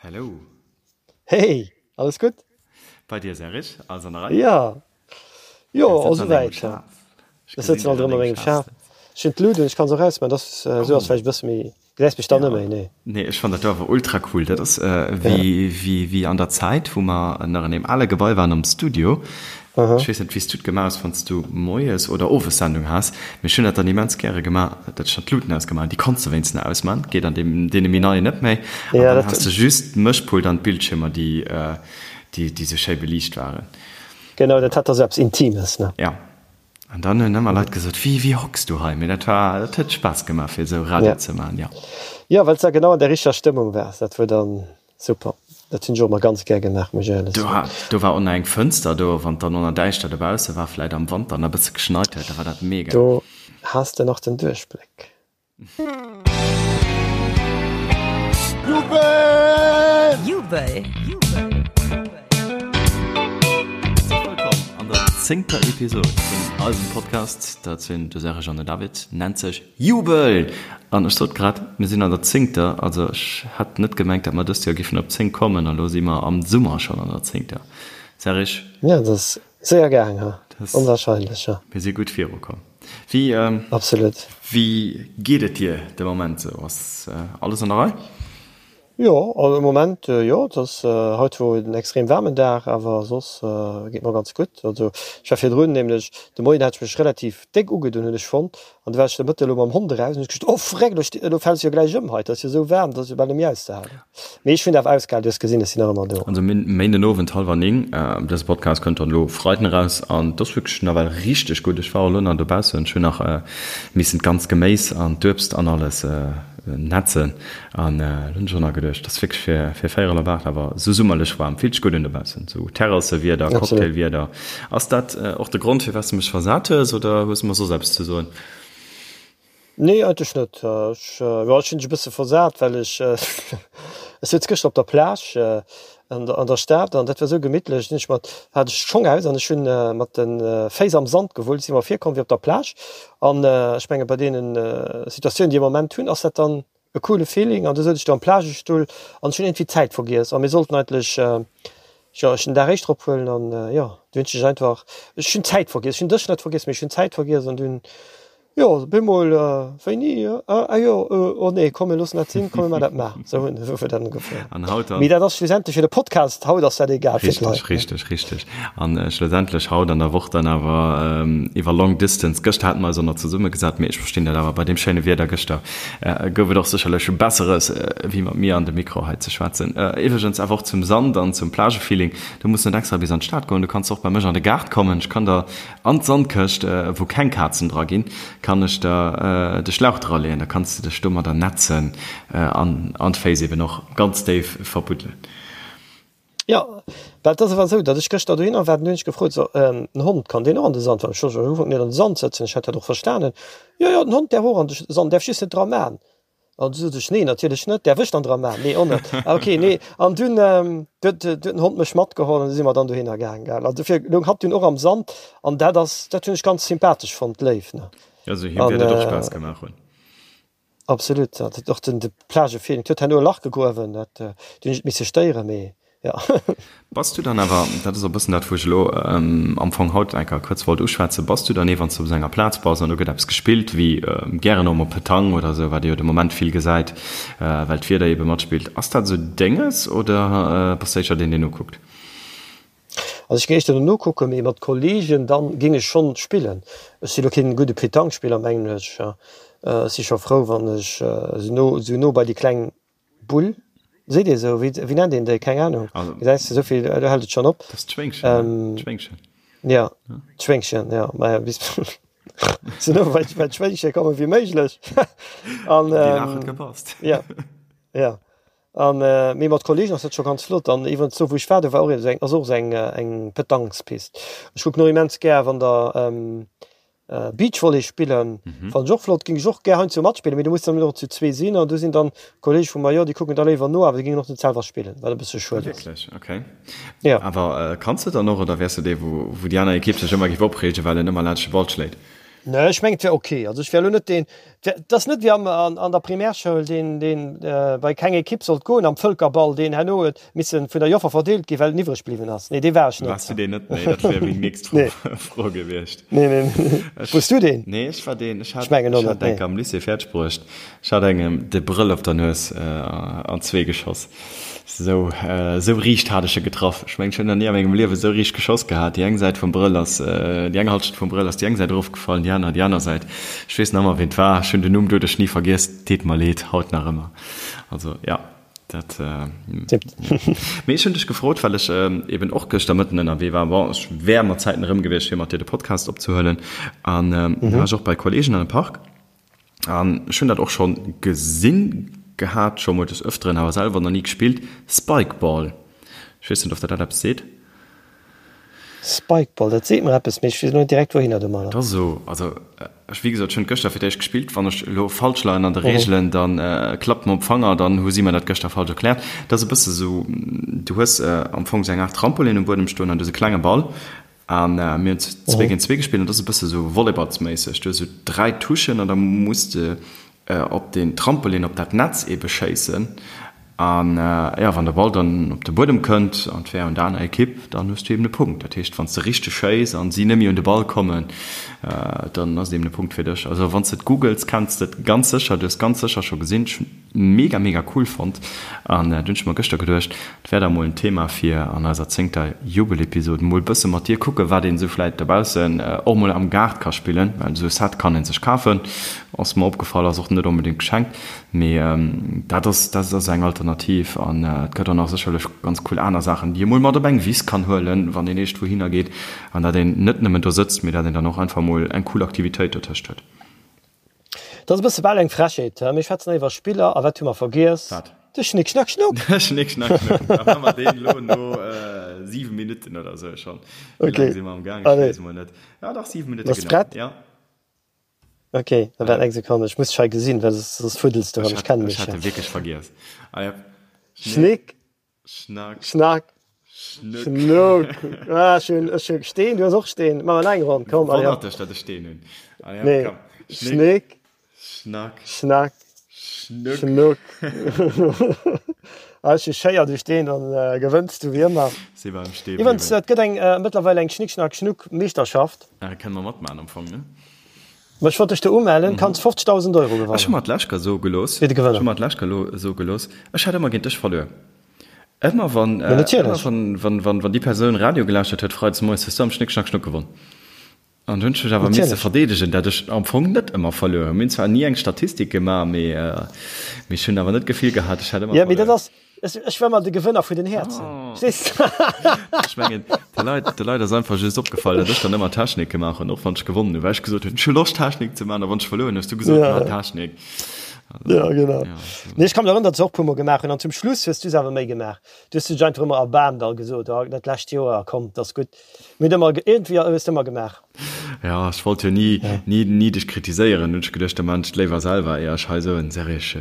Hello. Hey, alles gutt? Bei dir Serge, alles an der Rei? Ja. Jo, all souwäit. Ech sëtzen alt erëm a mengem Schaf. Ech hunn d'Lut un, ech kann se och ausmaachen, dat ass esou ass vläicht e bësse méi, gesäis mech dann net méi, nee. Nee, ech fannen dat do awer ultra cool. Dat ass wéi, wéi, wéi an der Zäit, wou mer nach an deem ale Gebai waren am Studio. Ech weess net, wéi s du et gemaach hues, wann s du moies oder owes Sendung has, mee ech hunn dat dann immens gäre gemaach, datt ech dann d'Luten ausgemaach hunn. Déi konns de wéinstens nach ausman, geet an deem, deene méi neien net méi. An dann has de just d'Mëschpult an d'Bildschiermer, déi, déi, déi sou schéi beliicht waren. Genau, dat hat da sou eppes Intimes, ne? Ja. An dann hunn ëmmer Leit gesot, Wéi, wéi hocks du hei? Mee dat war, dat huet Spaass gemaach, fir esou Radio ze maachen, jo. Jo, well s de da genau an der richteger Stëmmung waars. Dat wor dann Super, dat hunn ech och emmer ganz gär gemaach, muss ech éierlech soen. Do war och nach eng Fënster do, wann et dann och nach däischter dobausse war, vläit am Wanter nach e bësse geschneit huet, da war dat mega. Do has de nach den Duerchbléck. Jubel! Jubel! Herzlech wëllkomm an der zéngter Episod vun eisem Podcast. Dat sinn de Serge an den David, nennt sech Jubel! An ech sot grad, mir sinn an der zéngter, also ech hat net gemengt, datt mer dëst Joer giffen op 10 kommen, a lo si mer am Summer schonn an der zéngter. Serge? Jo, dat ass séier gaang, ha? Onwahrscheinlech, jo. Mir si gutt virukomm. Wéi, Absolut. Wéi geet et dir de Moment esou? Ass alles an der Rei? Jo, also am Moment jo. Et ass haut wor en extrem waarmen Dag, awer soss geet mer ganz gutt. Also ech war virdrun nämlech, de Moien hat ech mech relativ déck ugedunn hunn ech fonnt, an du war ech de Mëtte elo mam Hond eraus an hunn ech gesot, oh freck, elo sti elo fäls du jo gläich ëm hei, et ass jo esou waarm, et ass jo bal net méi auszehalen. Mee ech hunn awer ausgehalen, du hues gesinn, ech sinn nach ëmmer do. Also Méinden Owend hallwer 9, dëse Podcast kënnt dann elo Freiden eraus an et ass wierklech nawell richteg gutt. Ech war och elo nach dobaussen, ech hunn nach missen d'ganz Geméis an d'Uebst an alles netzen An lo hunn ech och nach geduecht, dass wierklech fir fir véierel op 8 awer sou summerlech waarm, fillt sech gutt un dobaussen, sou Terrassewieder, Cocktailwieder. Ass dat och de Grond firwat s de mech versat hues oder hues de mer soss eppes ze soen? Nee, eigentlech net. Ech, jo, ech hunn dech e bësse versat, well ech, ech souz gëschter op der Plage an der an der Stad an dat war sou gemittlech. Dunn hunn ech mat, hat ech d'Schong aus an ech hunn mat de Féiss am Sand gewullt, si mer virkomm wéi op der Plage. An ech menge bei deenen Situatiounen, déi am Moment hunn, ass dat dann e coole Feeling an du souz ech do am Plagestull an ech hunn iergendwéi d'Zäit vergiess a mir sollten eigentlech, jo, ech den Dag éischter ophuelen an jo, du hunn ech dech einfach, ech hunn d'Zäit vergiess, ech hunn dech net vergiess, mee ech hunn d'Zäit vergiess an dunn, jo, op eemol, wéini, ah jo, oh nee, komm mir loossen dat sinn, komm mir maachen dat mar, sou hunn esou huet dat ugefang. An haut dann? Mee dat ass schlussendlech fir de Podcast, haut ass dat egal fir d'Leit. Richteg, richteg, richteg. An schlussendlech haut an der Woch dann awer iwwer Long Distance, gëschter hate mer eis och nach zesummegesat, mee ech verstinn dat awer bei deem schéine Wieder gëschter, Gouf et och sécherlech Besseres, wéi mat mir an de Mikro hei ze schwätzen. Iwwregens awer och zum Sand an zum Plagefeeling, Du muss net extra bis an d'Stad goen, du kanns och bei mech an de Gaart kommen. Ech kann der an d'Sandkëscht, wou keng Kazen dra ginn, kann ech der de Schlauch draleeën. Da kanns de dech domadder netzen an d'Féiss eben och ganz déif verbuddelen. Jo, well et ass awer esou, datt ech gëschter dohinner war, dann hunn ech gefrot, so, den Hond, kann deen och an de Sand? Well ech wollt jo am Ufank net an de Sand sëtzen, ech hat dat och verstanen. Jo, jo, den Hond däerf och an de Sand, däerf just net dra man. An du sot ech, nee, natierlech net, däerf ech dann dra man? Nee, och net. Ah, okay, nee. An dunn huet den Hond mech matgeholl an du si mer dann dohinner gaang, gell. An dofir loung hatt dunn och am Sand an dat ass, dat hunn ech ganz sympathesch fonnt, léif, ne. Also him wäert et och Spaass gemaach hunn. Absolut, dat huet och den de Plagefeeling. Et huet herno e Lach gegruewen, dat du hunn ech et misse stéieren, mee jo. Bass du dann awer, dat ass och e bëssen dat wou ech elo am Fong haut eng Kéier kuerz wollt uschwätzen, bass du dann ee wann s du op esou enger Plaz bass an do gëtt eppes gespillt, wéi gären och mol Petanque oder esou, wat ee jo de Moment vill gesäit, well d'Wieder eebe matspillt, ass dat esou denges oder bass du éischter deen deen nokuckt? Also ech géing éischter dono kucken, mee mat Kollegen dann géing ech schonn spillen. Ech si lo keen gudde Pétanque-Spiller mengen ech. Ech si scho frou wann ech sou no sou no bei déi kleng Bull, seet ee sou, wéi wéi nennt een déi, keng Ahnung, gesäis de souvill, do hält et schonn op. Dat ass d'Schwéngchen, d'Schwéngchen. Jo, d'Schwéngchen, jo, maja bis sou no bei bei d'Schwéngche komme wéi méiglech an. Déi Laach huet gepasst. Jo, jo. An mee mat Kollegen ass dat scho ganz flott. An iwwerens do wou ech war, do war och esou eng, ass och esou eng eng Petanquespist. Ech kucken och immens gär wann der Beachvolley spillen, fannen ech och flott, géing ech och gär heiansdo matspillen, mee do muss dann och zu zwee sinn an do sinn dann Kollege vu mer, jo déi kucken da léiwer no, awer déi géingen och net selwer spillen, wat e bësse schued ass. Wierklech? Okay. Jo. Awer kanns de dann och oder wäers de dee wou wou déi aner Ekipp sech ëmmer géif opreegen, well en ëmmer laanscht de Ball schléit? Nee, ech mengen et wär ok. Also ech wär elo net deen. Et ass net wéi am, an, an der Primärschoul, deen, deen bei keng Ekipp sollt goen am Vëlkerball, deen herno huet missen vun der Joffer verdeelt ginn, well en iwwreg bliwwen ass. Nee, dee war ech net. Waars du deen net? Nee, dat wär meng nächst Fro, Fro gewiescht. Nee, nee, nee. Ech, Wars du deen? Nee, ech war deen. Ech hat, ech mengen och net, nee. Am Lycée fäerdeg bruecht. Ech hat engem de Brëll op der Nues an zwee geschoss. Sou, sou riicht hat ech e getraff. Ech mengen, ech hunn nach ni a mengem Liewe sou riicht geschoss gehat. Déi eng Säit vum Brëll ass, déi eng Halschent vum Brëll ass déi eng Säit erofgefallen, déi aner déi aner Säit. Ech weess nach ëmmer, ween et war. Ech hunn den Numm doduerch ni vergiess. Deet mer leed, haut nach ëmmer. Also, jo, dat. Mee ech hunn dech gefrot, well ech eben och gëschter Mëtten ënnerwee war. Bon, ech wär mat Zäiten erëm gewiescht, fir mat dir de Podcast opzehuelen. An da war ech och bei Kolleegen an de Park. An ech hunn dat och schonn gesinn gehat, scho mol des Öfteren, awer selwer nach ni gespillt, Spikeball. Ech weess net, of der dat eppes seet. Spikeball, dat seet mer eppes, mee ech weess elo net direkt wouhinner domadder. Et ass esou, also ech, wéi gesot, ech hunn et gëschter fir d'éischt gespillt. Wann ech elo falsch leien an de Reegelen, da klappt mer op d'Fanger, dann hu si mer dat gëschter falsch erkläert. Et ass e bësse sou, du hues am Fong sou eng Aart Trampolin um Buedem stoen an du hues e klenge Ball An mir hunn zwee géint zwee gespillt an dat ass e bësse sou volleyballsméisseg. Du hues esou 3 Touchen an da muss de op deen Trampolin, op dat Netz eebe schéissen. An jo, wann de Ball dann op de Buedem kënnt an et wär un der aner Ekipp, dann hues du eeben e Punkt. Dat heescht, wann s de richteg schéiss an si net méi un de Ball kommen, dann ass et eeben e Punkt fir dech. Also wann s de et googles, kenns de et ganz sécher. Du hues ganz sécher scho gesinn. Ech hunn mega mega cool fonnt an dunn hunn ech mer gëschter geduecht, et wär da mol en Thema fir an eiser zéngter Jubelepisode mol bësse mat dir kucke wat een esou vläit dobaussen och mol am Gaart ka spillen, well esou e Set kann een sech kafen, ass mer opgefall, ass och net onbedéngt geschenkt, mee dat ass dat ass eng Alternativ an et gëtt och nach sécherlech ganz cool aner Saachen déi ee mol mat op eng Wiss kann huelen, wann een eescht wouhinner geet an dat een net nëmmen do sëtzt, mee dat een dann och einfach mol eng cool Aktivitéit dotëscht huet. Dat ass e bësse bal eng Frechheet, he? Mir schwätzen hei iwwer Spiller a wat hu mer vergiess? Wat? De Schnick Schnack Schnuck! De Schnick Schnack Schnuck! Da maache mer deen elo no 7 Minutten oder esou schonn. Wéi laang si mer am Gaang? Ech weess emol net. Ja dach, 7 Minutte, genau. Bass prett? Ja. Ok, da waart eng Sekonn, ech muss dech hei gesinn, well soss fuddels de erëm, ech kennen mech. Ech hat e wierklech vergiess. Ah ja. Schnick. Schnack. Schnack. Schnuck. Schnuck. Ah, ech hunn, ech hunn Steen, du hues och Steen. Maache mer nach eng Ronn, komm. Allez, hopp. Wonnert dech, datt ech Steen hunn. Allez, hopp, Nee. komm. Schnick. Schnack. Schnack. Schnuck. Schnuck. Ah, ech hu Schéier, du Steen, dann gewënns du wéi ëmmer. Si beim Stee Iwwerens, bliwwen. et gëtt eng, mëttlerweil eng Schnick Schnack Schnuck Meeschterschaft. Ah, kënne mer matmaachen am Fong, ne? Ma ech wollt dech do umellen, kanns 50.000 Euro Ech hu gewannen. mer d'lescht Kéier soe gelooss, Fir de ech Gewënner. hu mer d'lescht Kéier elo soe gelooss, ech hätt ëmmer géint dech verluer. Ëmmer wann, Ma natierlech. ëmmer wann, wann, wann, wann déi Persoun Radio gelauschtert huet freides moies, hues du am Schnick Schnack Schnuck gewonn. An du hunn ech mech awer misse Natierlech. verdeedegen, dat ech am Fong net ëmmer verluer hunn. Mir hunn zwar ni eng Statistik gemaach, mee, mee ech hunn awer net d'Gefill gehat, ech hätt ëmmer Ja, mee dat verluer. ass, ech, ech war mol de Gewënner vun den Häerzen. Verstees de? Ech mengen, de Leit, de Leit ass einfach just opgefall, datt ech dann ëmmer Technik gemaach hunn, och wann ech gewonnen hunn, well ech gesot hunn, ech hu Loscht Technik ze maachen, a wann ech verluer hunn, hues du gesot, Ja. maach Technik. Ja, genau. Ja, so. Nee, ech ka mech erënneren, datt ech se och e puermol gemaach hunn. An zum Schluss hues du se awer méi gemaach. Du hues dech einfach ëmmer erbaarmt a gesot, oh, dat lescht Joer, komm, 't ass gutt. Mir hunn ëmmer, iergendwéi hues de ëmmer gemaach. Ja, ech wollt jo ni, ni, ni dech kritiséieren, hunn ech geduecht, da maan ech et léiwer selwer, éier ech hei esou en Serich.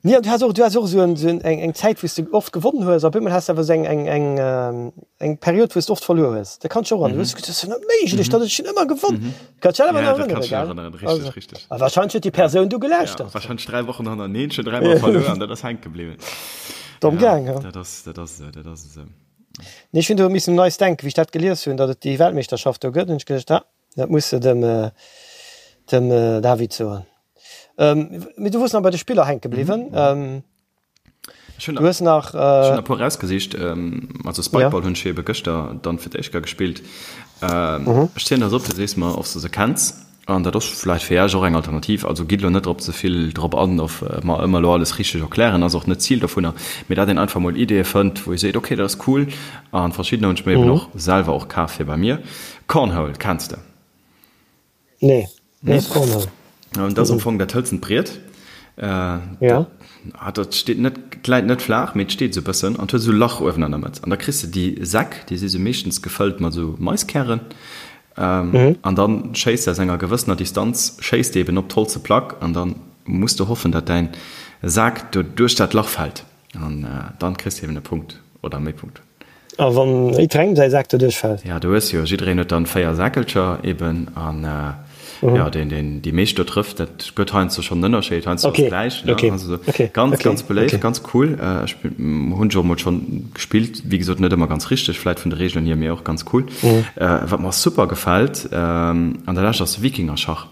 Nee, an du has och, du has och esou en, esou en, eng, eng Zäit, wou s de oft gewonnen hues, a op eemol has de awer esou eng, eng, eng, eng Period, wou s de oft verluer hues. Dat kann ech och erënneren. Du hues gesot, dat ass jo net méiglech, datt ech hunn ëmmer gewonn. Kanns dech awer Ja, nach dat erënnere, kann ech gell? nach erënneren, richtig, Also, richtig. a wahrscheinlech huet déi Persoun du Ja, gelauschtert. wahrscheinlech 3 Wochen hannerteneen, schon dräimol verluer an dat ass hänke bliwwen. Domm Ja, gaang, ja. dat ass, dat ass esou, dat ass esou. Nee, ech hunn do missen un eis denken, wéi ech dat gelies hunn, datt et déi Weltmeeschterschaft do gëtt, hunn ech geduecht, ah, dat muss de dem, dem David soen. Mee du wors nach bei de Spiller hänke bliwwen. Ech hunn Du hues nach. Ech hunn e puer rausgesicht. Also Spikeball hunn ech ebe gëschter dann fir d'éischt Kéier gespillt. Ech zielen der se op, du sees mer, ob s de se kenns. An dat ass vläicht fir Iech och eng Alternativ. Also gitt elo net drop ze vill drop an, of mer ëmmer elo alles richteg erklären, ass och net d'Zil dovunner, mee dat een einfach mol Ideeë fënnt, wou ee seet, okay, dat ass cool. A verschiddener hunn ech mir eben och selwer och kaf fir bei mir. Cornhole kenns de? Nee, wat ass Cornhole? Dat ass am Fong dat hëlzent Briet. Ja. Dat steet net, et läit net flaach, mee et steet esou e bëssen an et huet esou e Lach uewen an der Mëtt. An da kriss de déi Säck, déi si sou meeschtens gefëllt mat esou Maiskären. An da schéiss de aus enger gewëssener Distanz, schéiss de eben op d'holze Plack an da muss de hoffen, datt däin Sak do duerch dat Lach fält. An dann kriss de eben e Punkt oder méi Punkten. A wann jiddwerengem säi Sak doduerch fält? Ja, du hues jo, jiddereen huet dann 4 Säckelcher eben an. Jo, deen, deen déi meescht do trëfft, dat gëtt heiansdo schonn en Ënnerscheed, heiansdo ass et gläich, ne? Also ganz, ganz beléift, ganz cool. Ech hunn ech och emol schonn gespillt, wéi gesot net ëmmer ganz richteg vläit vun de Reegelen hier, mee och ganz cool. Wat mer super gefält an der Lescht ass Wikingerschach.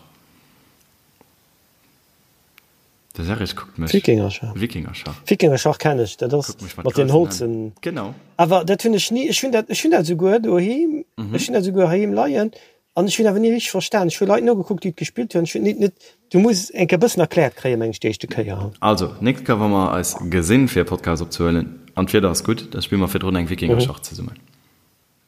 De Serge kuckt mech. Wikingerschach. Wikingerschach. Wikingerschach kenn ech, dat ass mat den Holzen. Genau. Awer dat hunn ech ni, ech hunn dat, ech hunn dat esouguer doheem, ech hunn dat esouguer heiheem leien an ech hunn awer ni richteg verstan. Ech hu Leit nogekuckt, déi et gespillt hunn, ech hunn net, net, du muss eng Kéier e bëssen erkläert kréien, meng ech, déi éischte Kéier. Also, nächst Kéier wa mer eis gesinn, fir e Podcast opzehuelen, an d'Wieder ass gutt, da spille mer virdrun eng Wikingerschach zesummen.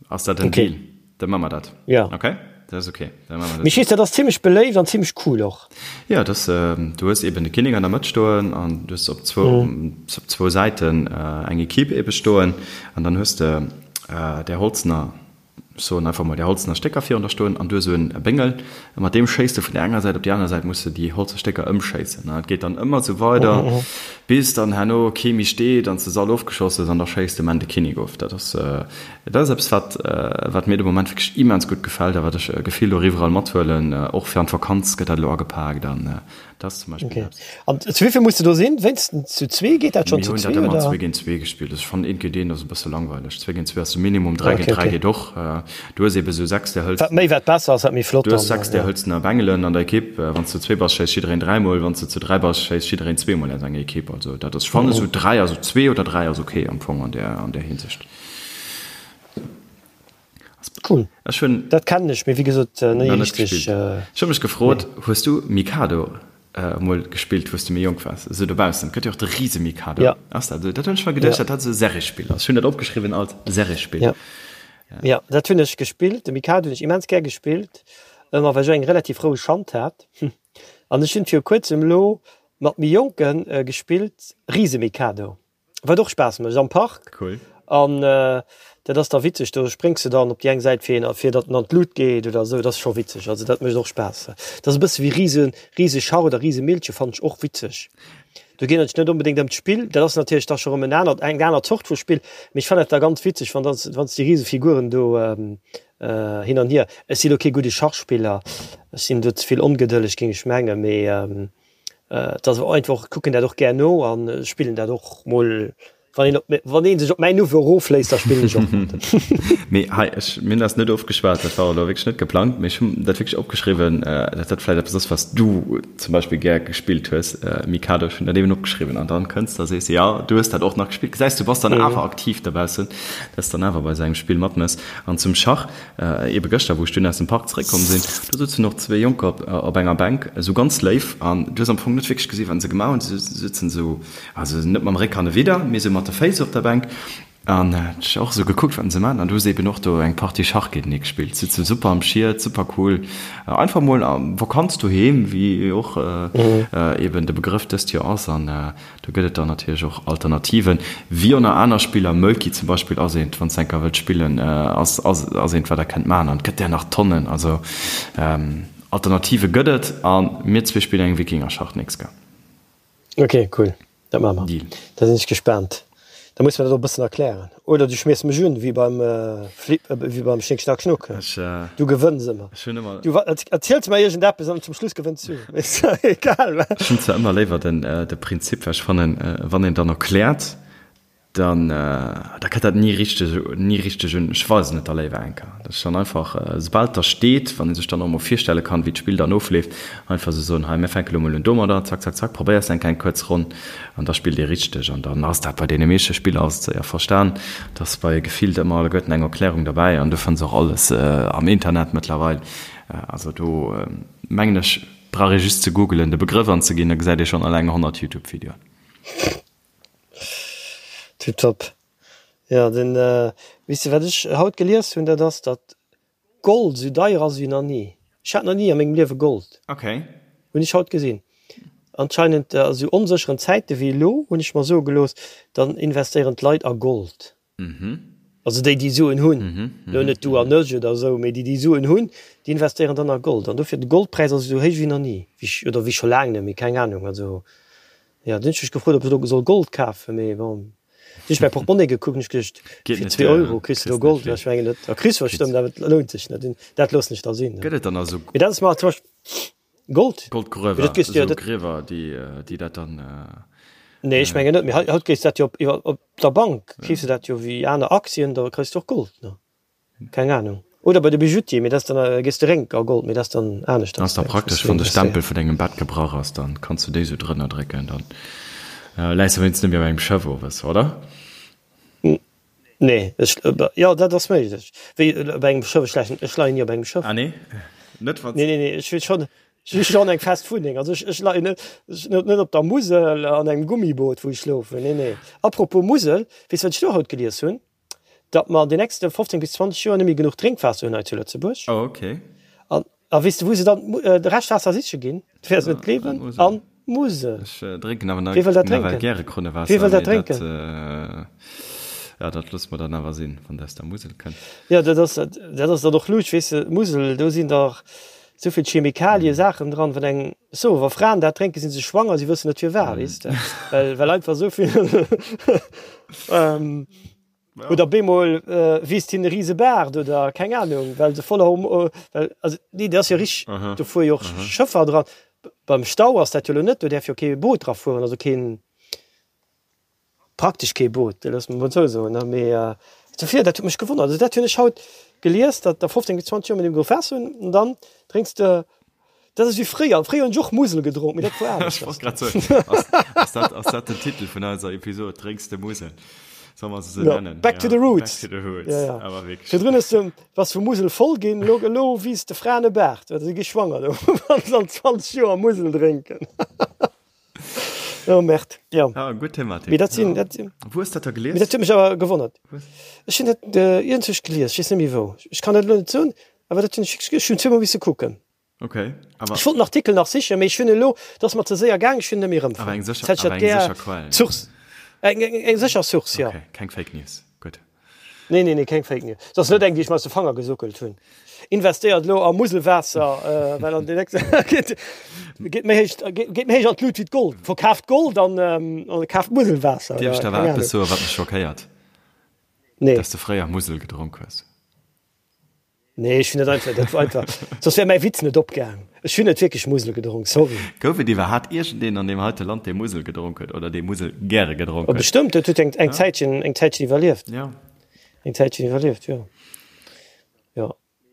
Ass dat en Deal? Da maache mer dat. Ja. Okay, dat ass okay. Da maache mer dat. Mee ech weess, dat ass zimmlech beléift an zimmlech cool och. Jo, dat ass, du hues eben de Kinnek an der Mëtt stoen an du hues op zwou, op zwou Säiten eng Equipe ebe stoen an dann hues de där holzener, ech soen einfach mol där holzener Stécker virun der stoen an du hues esou en Béngel a mat deem schéiss de vun där enger Säit op déi aner Säit, muss de déi holze Stécker ëmschéissen an dat geet dann ëmmer esou weider bis dann herno kee méi steet an s de se all ofgeschoss hues an da schéiss de um Enn de Kinnek of. Dat ass. Dat ass eppes, wat, wat mir de Moment wierklech immens gutt gefält a wat ech gefillt och iwwerall mathuelen. Och fir an d'Vakanz gëtt dat elo agepaakt an dat ass zum Beispill Okay. eppes. An zu wéi vill muss de do sinn? Wéinstens zu zwee? Geet dat schonn Mir zu hunn dat zwee, ëmmer oder? zwee géint zwee gespillt. Also ech fannen eent géint eent ass e bësse langweileg. Zwee géint zwee ass de Minimum, dräi Okay, géint dräi okay. geet och. Du hues eebe sou sechs där Wat méi, hëlzener, wat besser ass, wat méi flott du hues dann, sechs där ja. hëlzener Bengelen an der Ekipp. Wann s de zu zwee bass, schéisst jiddereen dräimol. Wann s de zu dräi bass, schéisst jiddereen zweemol aus enger Ekipp. Also dat ass, ech fannen esou dräi, also zwee oder dräi ass okay am Fong an där, an där Hinsicht. Cool. Ech hunn Dat kennen ech, mee wéi gesot ni nach net richteg. gespillt. Ech hu mech gefrot, hues du Mikado emol gespillt, wou s de méi jonk waars, esou dobaussen? Et gëtt jo och de Risemikado. Ja. Ass dat esou? Dat hunn ech mer geduecht, Ja. dat dat esou e Serrespill ass. Ech hunn dat opgeschriwwen als Serrespill. Ja. Ja, dat hunn ech gespillt. De Mikado hunn ech immens gär gespillt, ëmmer well ech och eng relativ roueg Hand hat. An ech hunn viru kuerzem elo mat méi Jonke gespillt, Risemikado. Wat och Spaass mécht am Park. Cool. An dat ass da witzeg, do spréngs de dann op déi eng Säit fir een, fir datt en an d'Lut geet oder esou. Dat ass scho witzeg. Also dat mécht och Spaass. Dat ass e bësse wéi Rise, Riseschach oder Risemillche fannen ech och witzeg. Do geet et net onbedéngt ëm d'Spill, dat ass natierlech da scho rëm en anert, eng aner Zort vu Spill, mee ech fannen dat da ganz witzeg, wann dann, wann s déi Risefiguren do hin an hier. Ech si lo kee gudde Schachspiller, ech sinn do ze vill ongedëlleg, géing ech mengen, mee Et ass einfach, ech kucken dat och gär no an spillen dat och mol, wann een op, wann ee sech op mäin Niveau erofléisst, da spillen ech och mat. Mee hei, ech, mir hunn dat net ofgeschwat, dat war elo wierklech net geplangt, mee ech hunn dat wierklech opgeschriwwen, datt dat vläicht eppes ass, wat s du zum Beispill gär gespillt hues, Mikado. Ech hunn dat eben opgeschriwwen an dann kënns de a sees, jo, du hues dat och nach gespillt. Gesäis, du bass dann awer aktiv dobaussen, dass s dann awer bei esou engem Spill matmëss. An zum Schach, Ebe gëschter, wou ech dunn aus dem Park zeréckkomm sinn, do souzen och zwee Jonker op enger Bänk, esou ganz léif, an du hues am Fong net wierklech gesinn, wat se gemaach hunn. Se souzen esou, also net mam Réck hannewidder, mee esou mat de Féiss op der Bänk, an ech och esou gekuckt, wat se maachen. An du hues eben och do eng Partie Schach géintenee gespillt. Souzen super am Schiet, super cool, einfach mol Vakanz doheem, wéi och eben de Begrëff dëst Joer ass. An Do gëtt et dann natierlech och Alternativen, wéi och nach aner Spiller. Mölkky zum Beispill ass eent, wann s de eng Kéier wëllt spillen, ass ass eent, wat der kënnt maachen. An et gëtt der nach Tonnen. Also Alternative gëtt et. A mir zwee spillen eng Wikingerschach d'nächst Kéier. Ok, cool, dat maache mer. Deal. Da sinn ech gespaant. Da muss mer dat och e bëssen erklären. Oder du schmiers mech un, wéi beim Flip, wéi beim Schnick Schnack Schnuck. Ech, Du gewënns ëmmer. ech hunn ëmmer. Du erziels mer iergendeppes an zum Schluss gewënns du. Ist ja egal, wa? Ech hunn zwar ëmmer léiwer den, de Prinzip, well ech fannen, wann een dann erkläert, dann, da kënnt dat ni richteg, ni richteg un. Ech weisen et da léiwer eng Kéier. Dat ass dann einfach, soubal et da steet, wann ee sech dann och emol virstelle kann, wéi d'Spill dann ofleeft, einfach esou soen, hei, mir fänke lo mol un domadder, zack, zack, zack, probéiers eng kleng kuerz Ronn An da spillt ee richteg. An dann ass dat bei deene meeschte Spiller ass et séier verstan, dass bei gefillt ëmmer alleguerten eng Erklärung derbäi an du fënns och alles am Internet mëttlerweil. Also do mengen ech brauch ee just ze googelen, de Begrëff anzeginn, da gesäit ee schonn alleng 100 Youtube-Videoen. Tiptop. Jo, den, weess de wat ech haut gelies hunn, dat ass, datt Gold esou deier ass ewéi nach ni. Ech hat nach ni a mengem Liewe Gold. Ok. Hunn ech haut gesinn. Anscheinend a sou onsécheren Zäite wéi elo, hunn ech mer soe gelooss, dann investéieren d'Leit a Gold. Also déi, déi Suen hunn, elo net du an ech oder esou, mee déi, déi Suen hunn, déi investéieren dann a Gold. An dofir, de Goldpräis ass esou héich wéi nach ni, wéi ech, oder wéi scho laang net méi, keng Anung. Also jo, dunn hunn ech mech gefrot, ob ech elo soll Gold kafen, mee bon. Hunn ech mäi Portmonnaie gekuckt, hunn ech geduecht, fir 2 Euro kriss de do Gold. Ech mengen, dat kriss du bestëmmt, awer et lount sech net. Dat loossen ech da sinn. Gëtt et dann also. Mee dat ass mer zum Beispill. Gold? Goldgruewer, Dat gees du jo, esou dat. Griewer, déi, déi dat dann. Nee, ech mengen net, mee haut kriss du dat jo op, iwwer, op der Bank kriss du dat jo wéi aner Aktien, da kriss du och Gold, ne? Keng Ahnung. Oder bei de Bijoutier, mee dat ass dann, gees de rénk a Gold, mee dat ass dann aneschters. Ass da praktesch, wann de Stempel vun dengem Bett gebrach ass, dann kanns du déi sou drënner drécken, dann läis de wéinstens net méi op engem Schëff owes, oder? Nee, ech, jo, dat ass méiglech. Wéi op engem Schëff, ech lächen, ech leien ni op engem Schëff. Ah nee? Net wann. Nee, nee, nee, ech hu schonn, ech hu schonn eng fest Wunneng. Also ech, ech leien net, ech net net op der Musel an engem Gummiboot, wou ech schlofen. Nee, nee. Apropos Musel, weess wat ech do haut gelies hunn? Datt mer an den nächste 15 bis 20 Joer net méi genuch Drénkwaasser hunn hei zu Lëtzebuerg. Oh, okay. An, a weess de wou se dann de Reschtwaasser siche ginn? Du wäers et net gleewen, an d'Musel. Ech drénken awer Wie wëll dat nawell drénken? gäre Krunnewaasser. Wie wëll dat mee drénken? Dat, ja, dat loosse mer dann awer sinn, wann dat aus der Musel kënnt. Jo, dat ass, dat ass dann och luucht, weess de, d'Musel, do sinn dach esou vill Chemikalie, Saachen dran, wann eng, so, wa Fraen dat drénken, si se schwanger, si wëssen net firwat, weess de, well, well einfach esou vill, Oder bemol wiisst hien e rise Baart oder keng Ahnung, well se voller Horm well also nee, dat ass jo richteg, do fuere jo och Schëffer dran. Beim Stau ass dat jo elo net, do däerf jo kee Boot dra fueren, also keen, praktesch kee Boot, loosse mer mol esou soen, ne. Mee dofir, dat huet mech gewonnert. Also dat hunn ech haut gelies, datt a 15 bis 20 Joer mir deem Waasser hunn an dann drénks de Dat ass wéi fréier. Fréier hunn ech och Musel gedronk, mee dat war Ech wollt grad soen, ass, ass dat, ass dat den Titel vun eiser Episod, Drénks de Musel? Solle mer se sou Ja, nennen? Back to the roots. Back to the roots. Ja, ja. Awer wierklech. Virdrun hues de, bass vu Musel voll ginn, elo, elo wiisst de Fraen e Baart, well se gi schwanger do, wann se an 20 Joer Musel drénken. Oh Merde, ja. Ah, gutt Thematik. Mee dat sinn, Ja. dat sinn, Wou hues dat da mee gelies? dat huet mech awer gewonnert. Wou hues. Ech hunn dat äh, iergendwou gelies, ech weess net méi wou. Ech kann dat elo net soen, awer dat hunn ech, ech hunn zweemol misse kucken. Okay, awer. Ech wollt den Artikel nach sichen, mee ech hunn elo, et ass mer ze séier gaang, ech hunn en net méi erëmfonnt. Awer eng sécher, awer eng sécher Quell. Source, eng, eng, eng sécher Source, jo. Okay, keng Fake News, gutt. Nee, nee, nee, keng Fake News. Et ass net eng, déi ech mer aus de Fanger gesuckelt hunn. Investéiert elo a Muselwaasser, well an den nächste geet, geet méi héich, geet méi héich an d'Lut wéi d'Gold. Verkaaft Gold an, an kaaft Muselwaasser, Dierf ech oder der awer keng eppes Ahnung. soen, wat mech schockéiert? Nee. Dass de fréier Musel gedronk hues. Nee, ech hunn net einfach, dat war einfach, soss wär mäi Witz net opgaang. Ech hunn net wierklech Musel gedronk, sorry. Gouf et iwwerhaat iergendeen an deem heite Land, dee Musel gedronk huet oder dee Musel gäre gedronk Oh, huet? bestëmmt, dat huet eng, eng Zäitchen, eng Zäitchen iwwerlieft. Ja. Eng Zäitchen iwwerlieft, jo. Jo.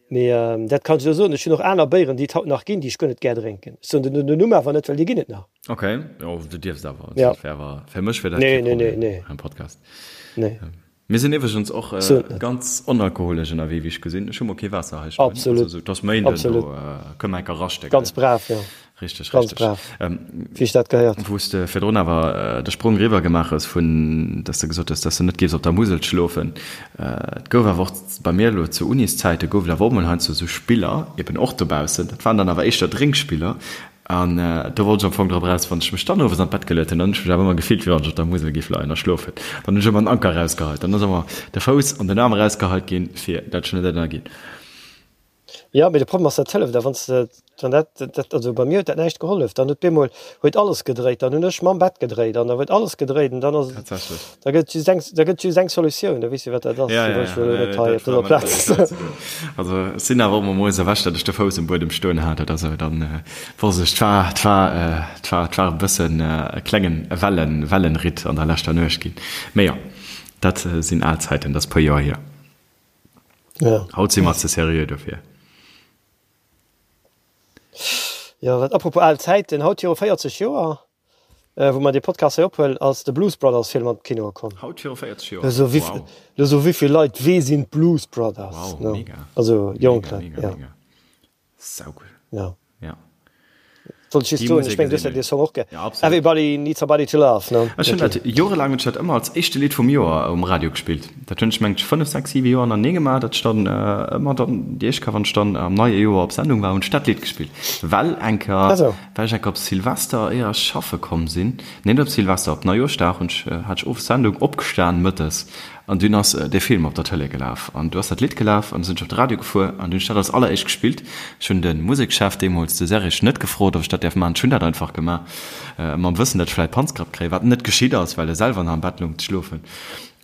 Mee dat kann ech elo soen, ech hunn och aner Béieren, déi et haut nach ginn, déi ech guer net gär drénken. Ech soen den den Numm awer net, well déi ginn et nach. Ok, jo, du dierfs awer. Ja. Dat wär awer, fir mech wär dat Nee, kee nee, nee, Problem nee. am Podcast. Nee. Mir sinn iwwregens och ganz onalkoholesch ënnerwee, wéi ech gesinn. Ech hu mol kee Waasser hei stoen. Absolut. Also, et ass Méinden, Absolut. do kënne mer enker raschte, gell? Ganz brav, jo. Richteg, Ganz richteg. brav, wéi ech dat gehéiert. Wou s de virdrun awer de Sprong eriwwer gemaach hues vun, dass de gesot hues, dass de net géifs op der Musel schlofen. Et gouf awer och bei mir elo zu Uniszäite gouf et awer och mol heiansdo esou Spiller, eben och dobaussen, dat waren dann awer éischter Drénkspiller, An do wollt ech am Fong drop eraus, wann ech mech dann owes an d'Bett geluet hunn, dann hunn ech mech awer ëmmer gefillt, wéi wann ech op der Musel géif leien a schlofen. Dann hunn ech ëmmer den Anker erausgeheit. Dann ass ëmmer de Fouss an den Aarm erausgeheit ginn, fir dat ech net ënnerginn. Jo, mee de Problem ass, dat hëlleft a wann s de, wann dat, dat, also bei mir huet dat näischt gehollef. Dann huet bemol huet alles gedréit, dann hunn ech mam Bett gedréit an da huet alles gedréit an dann ass, Tatsächlech. da gëtt just eng, da gëtt just eng Solutioun, da weess de wat dat ass. Ja, Déi ja, wëll ech ja, elo nee, net hei dat op war dëser mer Plaz. net ze doen. Also ech sinn awer och emol moies erwächt, datt ech de Fouss um Buedem stoen hat oder sou, dann wosst ech, 't war, 't war, 't war, 't war e bëssen e klengen Wellen, Wellenritt an der leschter Nuecht ginn. Mee jo, dat sinn al Zäiten, dat ass e puer Joer hier. Ja. Haut si mer ze seriö dofir. Jo, wat, apropos al Zäiten, haut viru 40 Joer, Wou mer dee Podcast hei ophuelen, ass de Blues Brothers Film an d'Kinoe komm. Haut viru 40 Joer? Lo so wéi, Wow. lo so wéivill Leit, wee sinn d'Blues Brothers? Wow, Ne? mega. Also jonk Mega, Leit, mega, ja. mega. Saugutt. Ja. Ja. Wollt ech just Déi soen, ech Musek meng, du ass hues ja eben. dee Song och gär. Ja, absolut. Everybody needs somebody to love, ne? Ech hunn dat jorelaang hunn ech dat ëmmer als éischte Lidd vum Joer um Radio gespillt. Dat hunn ech mengt 5, 6, 7 Joer hannertenee gemaach, datt ech dann ëmmer dann déi éischt Kéier, wann ech dann am neie Joer op Sendung war, hunn ech dat Lidd gespillt. Well eng Kéier, Ah sou. well ech eng Kéier op Silvester, éier ech schaffe komm sinn, nee net op Silvester, op Neijooschdag hunn ech, hat ech owes Sendung, opgestan mëttes an dunn ass dee Film op der Tëlee gelaf an du ass dat Lidd gelaf an du sinn ech op de Radio gefuer an dunn hunn ech dat als alleréischt gespillt. Ech hunn de Musekschef deemools, de Serge, net gefrot, ob ech dat däerf maachen. Ech hunn dat einfach gemaach, mam Wëssen, datt ech vläicht Panzgrapp kréien, wat net geschitt ass, well e selwer nach am Bett loung ze schlofen.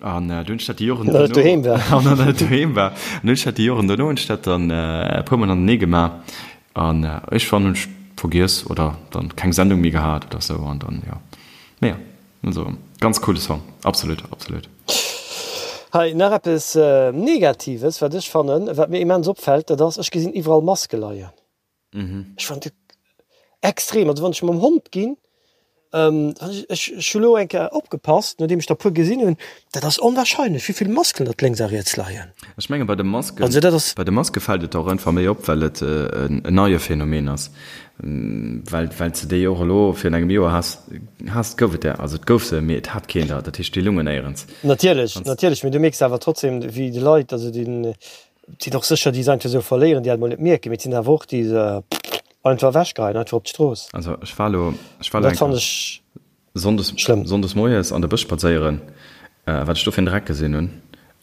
An du hunn ech dat déi Joren An net doheem war. An net doheem war. An hunn ech dat déi Joren dono hunn ech dat dann e puer mol hannertenee gemaach. An iergendwann hunn ech vergiess oder dann keng Sendung méi gehat oder sou an dann jo. Mee jo, also ganz coole Song, absolut, absolut. Hei nach eppes Negatives, wat ech fannen, wat mir immens opfällt, dat ass, ech gesinn iwwerall Maske leien. Ech fannen dat extrem. Also wann ech mam Hond ginn, ech hu lo eng Kéier opgepasst, nodeem ech der e puer gesinn hunn, dat ass onwahrscheinlech, wéi vill Masken datt lénks a riets leien. Ech menge bei de Masken, Also dat ass. Bei de Maske fält et och einfach méi op, well et en neie Phänomen ass, well well s de déi och elo virun engem Joer has, has, gouf et der, also et gouf se, mee et hat keen der, dat heescht déi lungen néierens. Natierlech, natierlech, mee du mierks awer trotzdem, wéi déi Leit, also déi Et sinn och sécher déi se einfach esou verléieren, déi dat emol net mierken, mee et sinn awer och déi se einfach ewechgeheien, einfach op d'Strooss. Also ech war elo, ech war elo eng Kéier Sonndes, Sonndes moies an de Bësch spadséieren, wat ech do fir en Dreck gesinn hunn.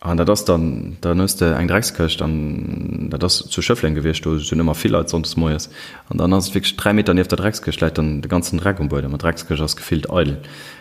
An dat ass dann, dann hues de eng Dreckskëscht an dat ass zu Schëffleng gewiescht, do sinn ëmmer vill Leit sonndes moies. An dann ass et wierklech 3 Meter nieft der Dreckskëscht läit dann de ganzen Dreck um Buedem an d'Dreckskëscht ass gefillt eidel.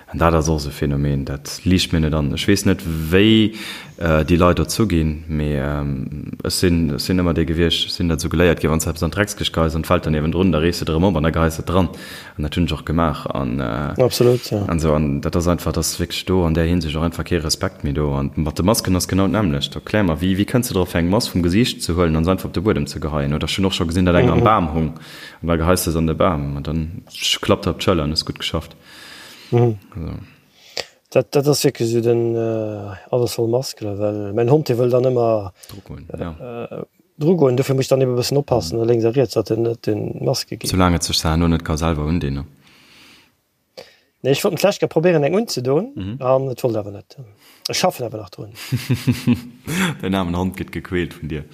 An dat ass och esou e Phänomen, dat liicht mir net an. Ech weess net, wéi déi Leit dozou ginn, mee ech sinn, ech sinn ëmmer dee gewiescht, ech sinn dat esou geléiert ginn, wann s de eppes an d'Dreckskëscht geheis an et fält dann niewendrun, da rees de et erëm op an da geheis de et dran. An dat hunn ech och gemaach. An, Absolut, jo. an esou. An dat ass einfach, et ass wierklech do an där Hinsicht och einfach kee Respekt méi do. An mat de Masken ass genau d'nämmlecht. Erklär mer, wéi, wéi kënns de drop, fir eng Mask vum Gesiicht ze huelen an se einfach op de Buedem ze geheien? Oder ech hunn och scho gesinn, datt eng am Bam hung an da geheis de se an de Bam an dann klappt der op d'Schëller an hues gutt geschafft. Mhm. Also. Dat, dat ass wierklech esou den äh, alles voll Maskele, well mäin Hond dee wëll dann ëmmer Dru goen, ja. äh, dru goen. Dofir muss ech dann ebe bëssen oppassen no lénks a riets, datt en net un d'Maske geet. Soulaang et sech se herno net ka selwer undinn, ne? Nee, ech wollt en d'lescht Kéier probéieren eng unzedoen an et wollt awer net. Ech schaffen awer nach drun. Däin aarmen Hond gëtt gequält vun dir.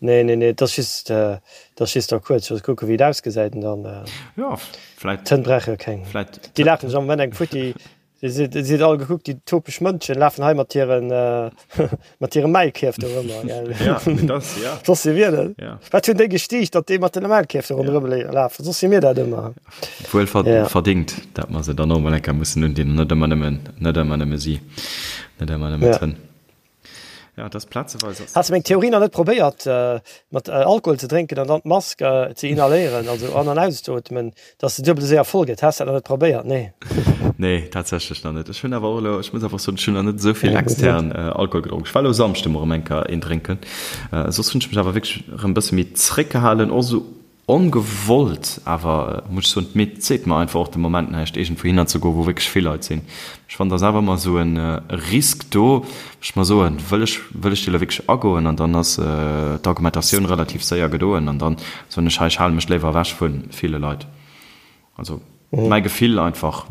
Nee, nee, nee, et ass just, et ass just da kuerz, just kucken, wéi et ausgesäit an dann. Jo, vläit. D'Hënn brauche jo keng. Vläit. Déi lafen sech am Moment eng futti. Déi si, déi sinn all gekuckt, déi topeg Mënschen lafen hei mat hiren, mat hire Maulkierf do ronderëm, gell. Ja, mee dat, ja. Soss si mir dat. Ja. Wat hunn déi gestiicht, datt déi mat den Maulkierf do ronderëm lafen? Soss si mir dat ëmmer. Wuel verdingt, dat mer se dann och emol eng Kéier mussen undinn an net ëmmer nëmmen, net ëmmer nëmme si, net ëmmer nëmme d'Hënn. Ja, das plazeweis ass. Has de meng Theorie nach net probéiert, mat Alkohol ze drénken an dann d'Mask ze inhaléieren, also an an auszeootmen, dass se duebel esou séier voll gëtt? Has de dat nach net probéiert? Nee. Nee, tatsächlech nach net. Ech hunn awer och elo, ech muss einfach soen, ech hunn nach net esou vill extern Alkohol gedronk. Ech war elo Samschde mol erëm eng Kéier een drénken. Soss hunn ech mech awer wierklech erëm e bësse méi zréckgehalen, och esou Ongewollt, awer muss ech soen, d'Midd seet mer einfach och de Moment näischt, iergendwou hinner ze goen, wou wierklech vill Leit sinn. Ech fannen, et ass awer ëmmer esou e Risk do, ech mer soen, wëll ech, wëll ech dee elo wierklech agoen? An dann ass d'Argumentatioun relativ séier gedoen an dann soen ech, hei, ech hale mech léiwer ewech vu ville Leit. Also mäi Gefill einfach,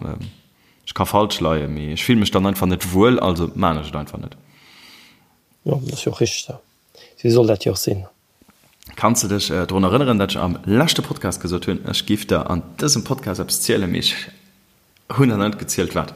ech ka falsch leien, mee ech fille mech dann einfach net wuel, also maan ech et einfach net. Jo, dat ass jo och richteg esou. Esou soll dat jo och sinn. Kanns de dech drun erënneren, dat ech am leschte Podcast gesot hunn, ech giff der an dësem Podcast eppes zielen, mee ech hunn der net gezielt wat?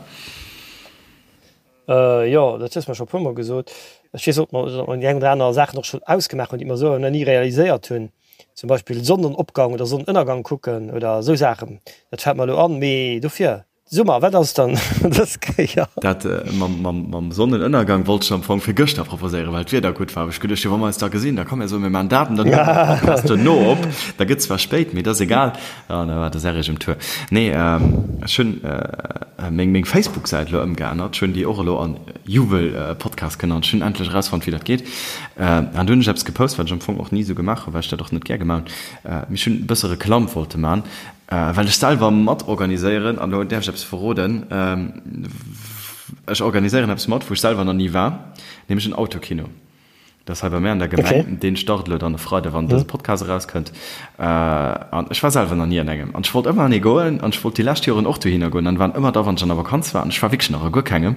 Jo, dat hues mer scho puer mol gesot. Ech weess och, datt mer déi eng oder aner Saachen och schonn ausgemaach hunn, déi mer esou nach ni realiséiert hunn. Zum Beispill Sonnenopgang oder Sonnenënnergang kucken oder esou Saachen. Dat fält mer elo an. Mee dofir Summer, wat ass dann dës Kéier? Dat mam Sonnenënnergang wollt ech am Fong fir gëschter proposéieren, well d'Wieder gutt war. Ech geduecht, jo wa mer eis da gesinn, da komm mir soen, mir maachen dat an dann huele mer de Podcast duerno op. Da gëtt zwar spéit, mee et ass egal. An da war de Serrig um Tour. Nee, ech hunn meng Facebook-Säit elo ëmgeännert. Ech hunn déi och elo an Jubel-Podcast genannt. Ech hunn endlech erausfonnt, wéi dat geet. An do hunn ech eppes gepost, wat ech am Fong och ni esou gemaach hunn, well ech dat och net gär gemaach hunn. Mee ech hunn e bësse Reklamm wollte man. Well ech selwer mat organiséieren, an elo däerf ech eppes verroden, ech organiséieren eppes mat, wou ech selwer nach ni war, nämlech en Autokino. Dat ass hei bei mär an der Gemeng. Deen start elo dann e Freide, wann dëse Podcast erauskënnt. An ech war selwer nach ni an engem. An ech wollt ëmmer an ee goen an ech wollt déi lescht Joren och dohinner goen an waren ëmmer da, wann ech an der Vakanz war. An ech war wierklech nach a guer kengem.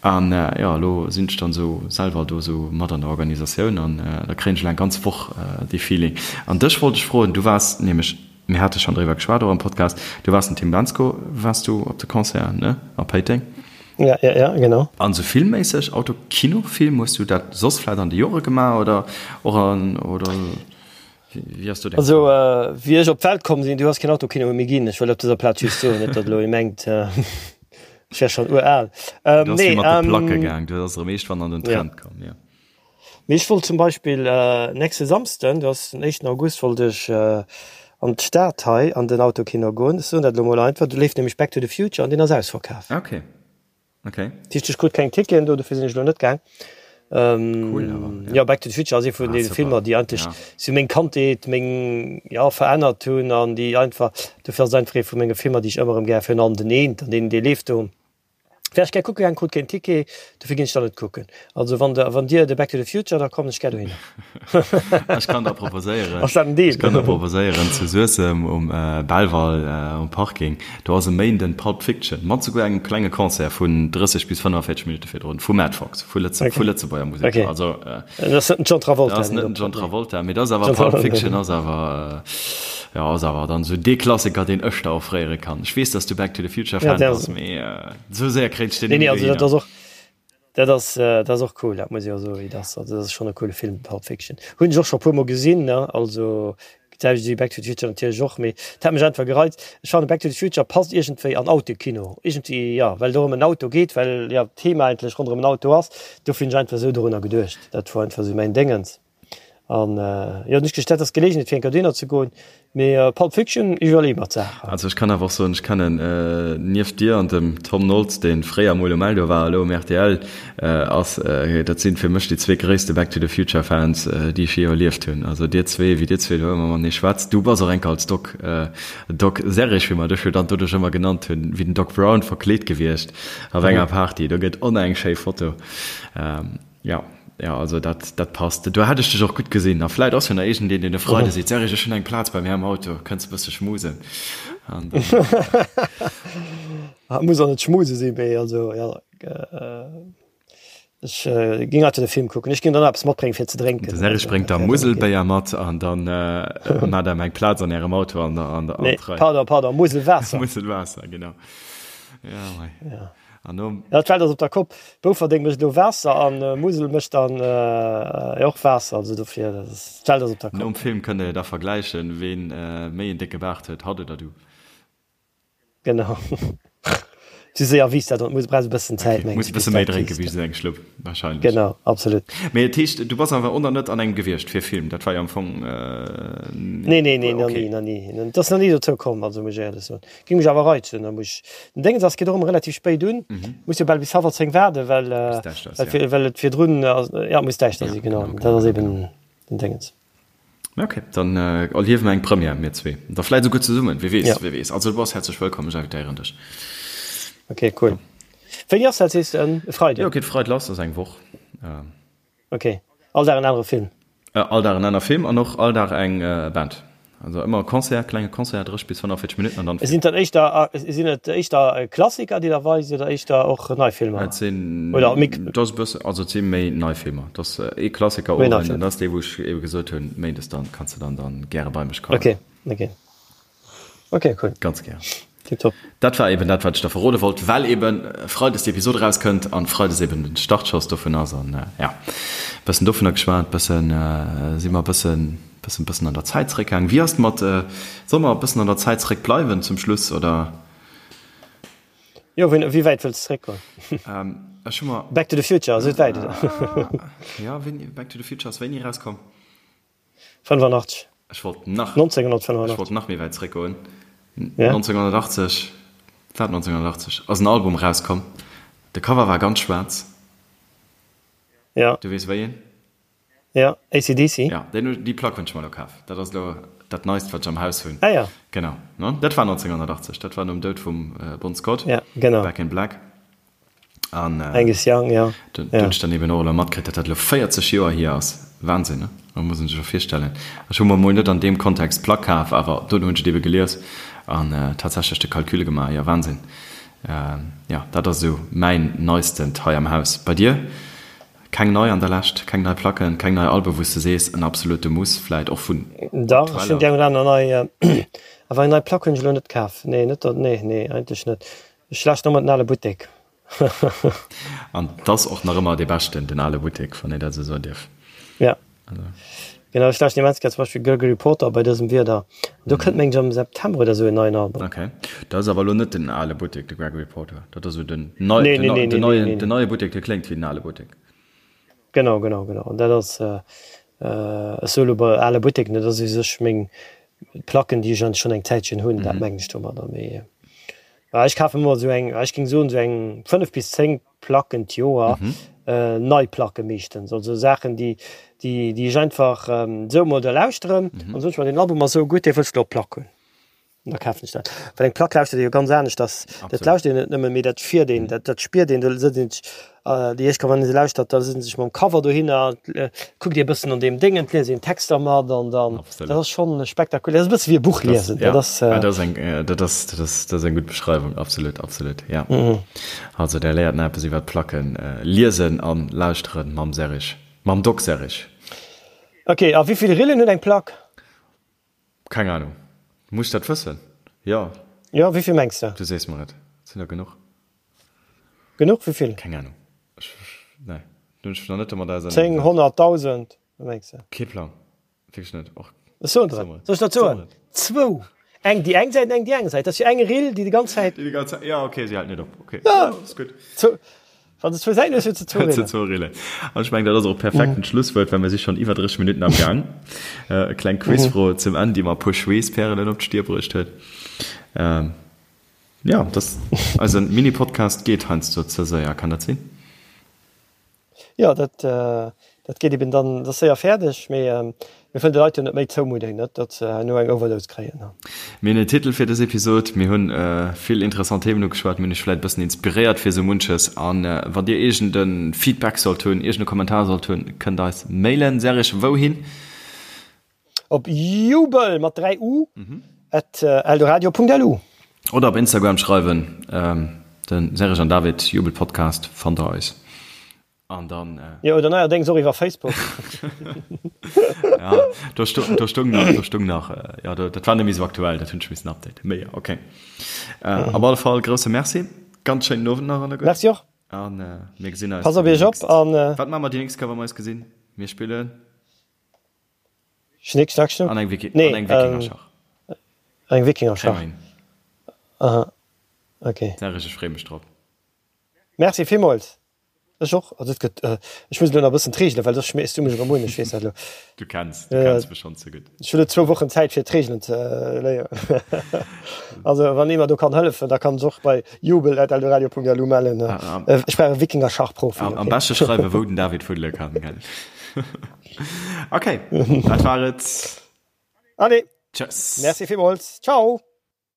An jo, elo sinn ech dann esou selwer do esou mat an der Organisatioun an da kréien ech elo eng ganz Woch dee Feeling. An dech wollt ech froen, du waars nämlech, Mir hate schonn driwwer geschwat, och am Podcast. Du waars den Tim Bendzko, waars du op de Concert, ne? A Péiteng. Ja, ja, ja, genau. An sou filmméisseg, Auto, Kino, Film, hues du dat soss vläit an de Jore gemaach oder och an, oder wéi ass do deng Also, wéi ech op d'Welt komm sinn, du ass keen Autokino méi ginn. Ech wëll op dëser Plaz just soen, net datt elo ee mengt, ech wär schonn ural. Du ass wéi mat de Placke gaang, du ass erëm eeschtwann an den Trend komm, jo. Mee ech wollt zum Beispill nächste Samsden, dat ass den éischten August, wollt ech an d'Stad hei an den Autokino goen. Ech soen dat elo mol einfach, do leeft nämlech Back to the Future an deen ass ausverkaf. Okay, okay. Dat heescht, ech krut keng Ticketen do, dofir sinn ech elo net gaang. Cool awer, ja. Jo, Back to the Future ass ee vun deene Filmer, déi eigentlech sou meng Kandheet, meng, jo, verännert hunn an déi einfach, dofir ass et einfach ee vu menge Filmer, déi ech ëmmer erëm gär, virun allem den eent an deen, dee leeft do. Wär ech gär kucke gaang, krut keen Ticket, dofir ginn ech dann net kucken. Also wann der, wann dir de Back to the Future, da kommen ech gär dohinner. Ech kann der proposéieren, Ass dat en Deal? ech kann der proposéieren zu Suessem um Belval um Parking, do ass e Méinden Pulp Fiction mat souguer engem klenge Concert vun 30 bis 45 Minutte virdrun vu Mad Fox, vu Lëtze, vu Lëtzebuerger Musek. Okay. Also Dat ass net den John Travolta. Dat ass net den John Travolta, mee dat ass awer Pulp Fiction ass awer, jo, ass awer dann esou dee Klassiker, deen ech der offréiere kann. Ech weess, dass du Back to the Future Fan bass, mee esou séier kréint ech deen net méi Nee, also dat dohinner. ass och, dat ass, dat ass och cool, dat muss ech och soen, dat ass, also dat ass schonn e coole Film, Pulp Fiction. Hunn ech och scho e puermol gesinn, ne, also d'selwecht wéi Back to the Future natierlech och, mee dat hat mech einfach gereizt. Ech fannen Back to the Future passt iergendwéi an Autokino, iergendwéi, jo, well et och ëm en Auto geet, well, jo, d'Thema eigentlech ronderëm en Auto ass. Dofir hunn ech einfach esou dorunner geduecht. Dat wor einfach esou mäin Déngens. An jo, hunn ech geduecht, dat ass d'Geleegenheet fir eng Kéier dohinner ze goen. Mee Pulp Fiction iwwerleeë mer d'Saach. Also ech kann awer och soen, ech kennen nieft dir an dem Tom Noltz, dee fréier mol um Eldo war, elo um rtl ass, dat sinn fir mech déi zwee gréisste Back to the Future Fans, déi ech jee erlieft hunn. Also dir zwee, wéi dir zwee do ëmmer matenee schwätzt. Du bass och enker als Doc, Doc Serrig, wéi mer dech jo dann doduerch ëmmer genannt hunn, wéi den Doc Brown verkleet gewiescht op enger Party. Do gëtt on eng schéi Foto. Jo, jo, also dat, dat passt. Do hätt ech dech och gutt gesinn. A vläit ass jo nach iergendeen, deen e Freide seet, Serge, ech hunn eng Plaz bei mär am Auto, kënns e bësse schmusen? An dann. Ah, muss och net schmuse sinn, mee also jo, ech géing einfach de Film kucken. Ech géing dann eppes matbréngen, fir ze drénken. De Serge bréngt da Muselbéier mat an dann maacht Der eng Plaz an Ärem Auto an der, an der, an Nee, d'Rei. pardon, pardon, Muselwaasser. Muselwaasser, genau. Jo, mei. Ja. An nom. Ja, d'Welt ass op der Kopp. Bouferdeng mécht elo Waasser an Musel mécht dann och Waasser. Also dofir, dat ass, d'Welt ass op der Kopp. Nom Film kënnt der jo da vergläichen, ween méi en décke Baart huet, hatt oder du. Genau. Sou séier wiisst dat net, muss, brauchs e bëssen Zäit, mengen ech. Muss e bësse méi drénke wéi esou eng Schlupp, wahrscheinlech. Genau, absolut. Mee et heescht, du bass awer och nach net an engem gewiescht fir Film, dat war jo am Fong. Nee, nee, nee, nach ni, nach ni. Et ass nach ni dozou komm, also muss ech éierlech soen. Ging mech awer reizen, da muss ech, den Déngens ass, geet och ëmmer relativ spéit un, muss jo bal bis hallwer 10 waarden, well, well, well et virdrun, ja, muss däischter si, genau, dat ass eben den Déngens. Ok, dann erliewe mer eng Première, mir zwee, da vläit esouguer zesummen, wie weess, wie weess. Also du bass häerzlech wëllkomm, ech invitéieren dech. Ok, cool. Wéini ass dat, sees de? E Freiden? Jo, geet Freide lass, ass eng Woch. Ok, all Dag en anere Film? All Dag en aner Film an och all Dag eng Band. Also ëmmer e Concert, klenge Concert, 30 bis 45 Minutten an dann Film. Sinn et dann éischter, sinn et éischter Klassiker, déi der weist oder éischter och nei Filmer? Et sinn, oder mix? Et ass e bëssen, also et si méi nei Filmer. Et ass ee Klassiker Méi nei Owend an dat ass dee wou ech ebe gesot hunn, méindes dann kanns de dann dann gäre bei mech kommen. Ok, ok. Ok, cool. Ganz gär. Tiptop. Dat war eben dat, wat ech der verrode wollt, well eben Freides d'Episod erauskënnt an Freides eben den Startschoss dovun ass an ja, bëssen dovunner geschwat, bëssen si mer bëssen, bëssen, bëssen an der Zäit zeréckgaangen. Wéi ass et mat, solle mer bëssen an der Zäit zeréck bleiwen zum Schluss oder? Jo, wéi, wéi wäit wëlls de zeréckgoen? Ech hu mer. Back to the Future ass et wäit, oder? Jo, wéini, Back to the Future ass wéini erauskomm? 85. Ech wollt nach, 1985. Ech wollt nach méi wäit zréckgoen. Ja. 1980, war et 1980, ass en Album erauskomm. De Cover war ganz schwaarz. Ja. Du weess wéi een? Ja, AC/DC. Ja, deen, déi Plack hunn ech mer elo kaf. Dat ass elo dat Neist, wat ech am Haus hunn. Ah ja. Genau, ne? Dat war 1980, dat war nom Doud vum Bon Scott. Ja, genau. Back in Black. An Angus Young, ja. Do hunn ech dann eben och elo matkritt, datt dat elo 40 Joer hier ass. Wahnsinn, ne? Dat muss een sech och virstellen. Ech hu mer emol net an deem Kontext d'Plack kaf, awer dono hunn ech et ebe gelies an tatsächlech de Calcul gemaach. Jo, Wahnsinn. Jo, dat ass esou mäin Neistent hei am Haus. Bei dir? Keng nei an der Lescht? Keng nei Placken, keng nei Alben, wou s de sees, en absolute Muss, vläit och vun Dach, ech hunn déi eng oder aner nei, awer eng nei Plack hunn ech elo net kaf. Nee, net, nee, nee, eigentlech net. Ech lauschten ëmmer den ale Buttek. An 't ass och nach ëmmer dee beschten, den ale Buttek, wann een dat esou soen dierf. Ja, genau. Ech lauschten immens gär zum Beispill Gregory Porter bei dësem Wieder. An do kënnt mengen ech am September oder esou en neien Album. Ok. Dat ass awer elo net den ale Buttek, de Gregory Porter. Dat ass esou den nei, den neien, den neie Buttek, dee kléngt wéi den ale Buttek. Genau, genau, genau. An dat ass, ech soe lo bei ale Buttek, dat ass u sech meng Placken, déi ech an schonn eng Zäitchen hunn, dat mengen ech domadder. Mee ech kafen ëmmer esou eng, ech géing soen, esou eng 5 bis 10 Placken d'Joer, nei Placke meeschtens, also Saachen, déi, déi, déi ech einfach esou emol da lauschteren an soen ech mer, deen Album ass esou gutt, dee wëlls de op Plack hunn. An da kafen ech dat. Well eng Plack lauschtert ee jo ganz anescht, dass, dat lauschtert een net nëmmen, mee dat fiert een, dat, dat spiert een, do sëtzt een sech, déi éischt Kéier wann ee se lauschtert, da sëtzt een sech mam Cover dohinner, kuckt ee bëssen an deem Déngen, liest een d'Texter mat an dann, dat ass schonn spektakulär, dat ass e bësse wéi e Buch liesen, dat ass. Dat ass eng, dat ass, dat ass, dat ass eng gutt Beschreiwung, absolut, absolut, ja. Also där léiert nach eppes iwwer d'Placken liesen an lauschteren mam Serrig, mam Doc Serrig. Ok, a wéi vill Rillen huet eng Plack? Keng Ahnung. Muss ech dat wëssen? Jo. Jo, wéivill mengs de? Du sees mer et. Et sinn der genuch. Genuch? Wéivill? Keng Ahnung. Ech, nee. Do hunn ech mech nach net domat auserneegesat. 10, 100, 1000? Wat mengs de? Kee Plang. Wierklech net. Och. Ech soen der et. Soll ech der et soen? Zwou. Eng déi eng Säit an eng déi aner Säit. Dat ass jo eng Rill, déi déi ganz Zäit. Déi déi ganz Zäit, jo, okay, si hält net op. Okay. Jo, ass gutt. Zwou. Wann de zwou Säiten hues, hues de zwou Hues de zwou Rillen. An ech mengen, dat ass och e perfekten Schlusswuert, well mir si schonn iwwer 30 Minutten am Gaang. E kleng Quizfro zum Enn, déi mer e puer Schweesspärelen op d'Stier bruecht huet. Jo, dass eise Mini-Podcast geet heiansdo ze séier, kann dat sinn? Jo, dat, dat geet eben dann, dat ass séier fäerdeg, mee mir wëllen de Leit jo net méi zoumudden, net datt se herno eng Overdose kréien. Mir hunn en Titel fir dës Episod, mir hunn vill interessant Themen ugeschwat, mir hunn iech vläit e bëssen inspiréiert fir esou munches. An wann dir iergend e Feedback sollt hunn, iergend e Kommentar sollt hunn, kënnt eis mailen. Serge, wouhin? Op jubel mat 3 u at eldoradio.lu. Oder op Instagram schreiwen, den Serge an David Jubel Podcast fannt der eis. An dann. Jo, oder neierdéngs och iwwer Facebook. Ja, do sto, do stoung nach, do stoung nach, jo, do, dat war net méi esou aktuell, dat hunn ech missen updaten. Mee jo, okay. Op alle Fall grousse Merci, ganz schéinen Owend nach alleguer. Merci och. An mir gesinn eis. Pass op iech op an. Wat maache mer déi nächst Kéier, wa mer eis gesinn? Mir spillen. Schnick, schnack, schnuck. An eng Wiki, nee, an eng Wikingerschach. Ähm, eng Wikingerschach. Aha. Okay. Serge, ech freeë mech drop. Merci villmools. Ech och. Also et gëtt, ech muss elo nach e bëssen d'Reegelen, well soss schmees du mech erëm un, ech weess dat elo. Du kenns, du kenns mech schonn ze gutt. Ech hu lo zwou Wochen Zäit fir d'Reegelen ze léieren. Also wann ee mer do kann hëllefen, da kann sech och bei jubel@eldoradio.lu mellen. Ech brauch e Wikingerschachprofi. Am beschte schreiwen, wou den David fuddele kann, gell? Okay, dat war et. Allez. Tschëss. Merci villmools. Ciao.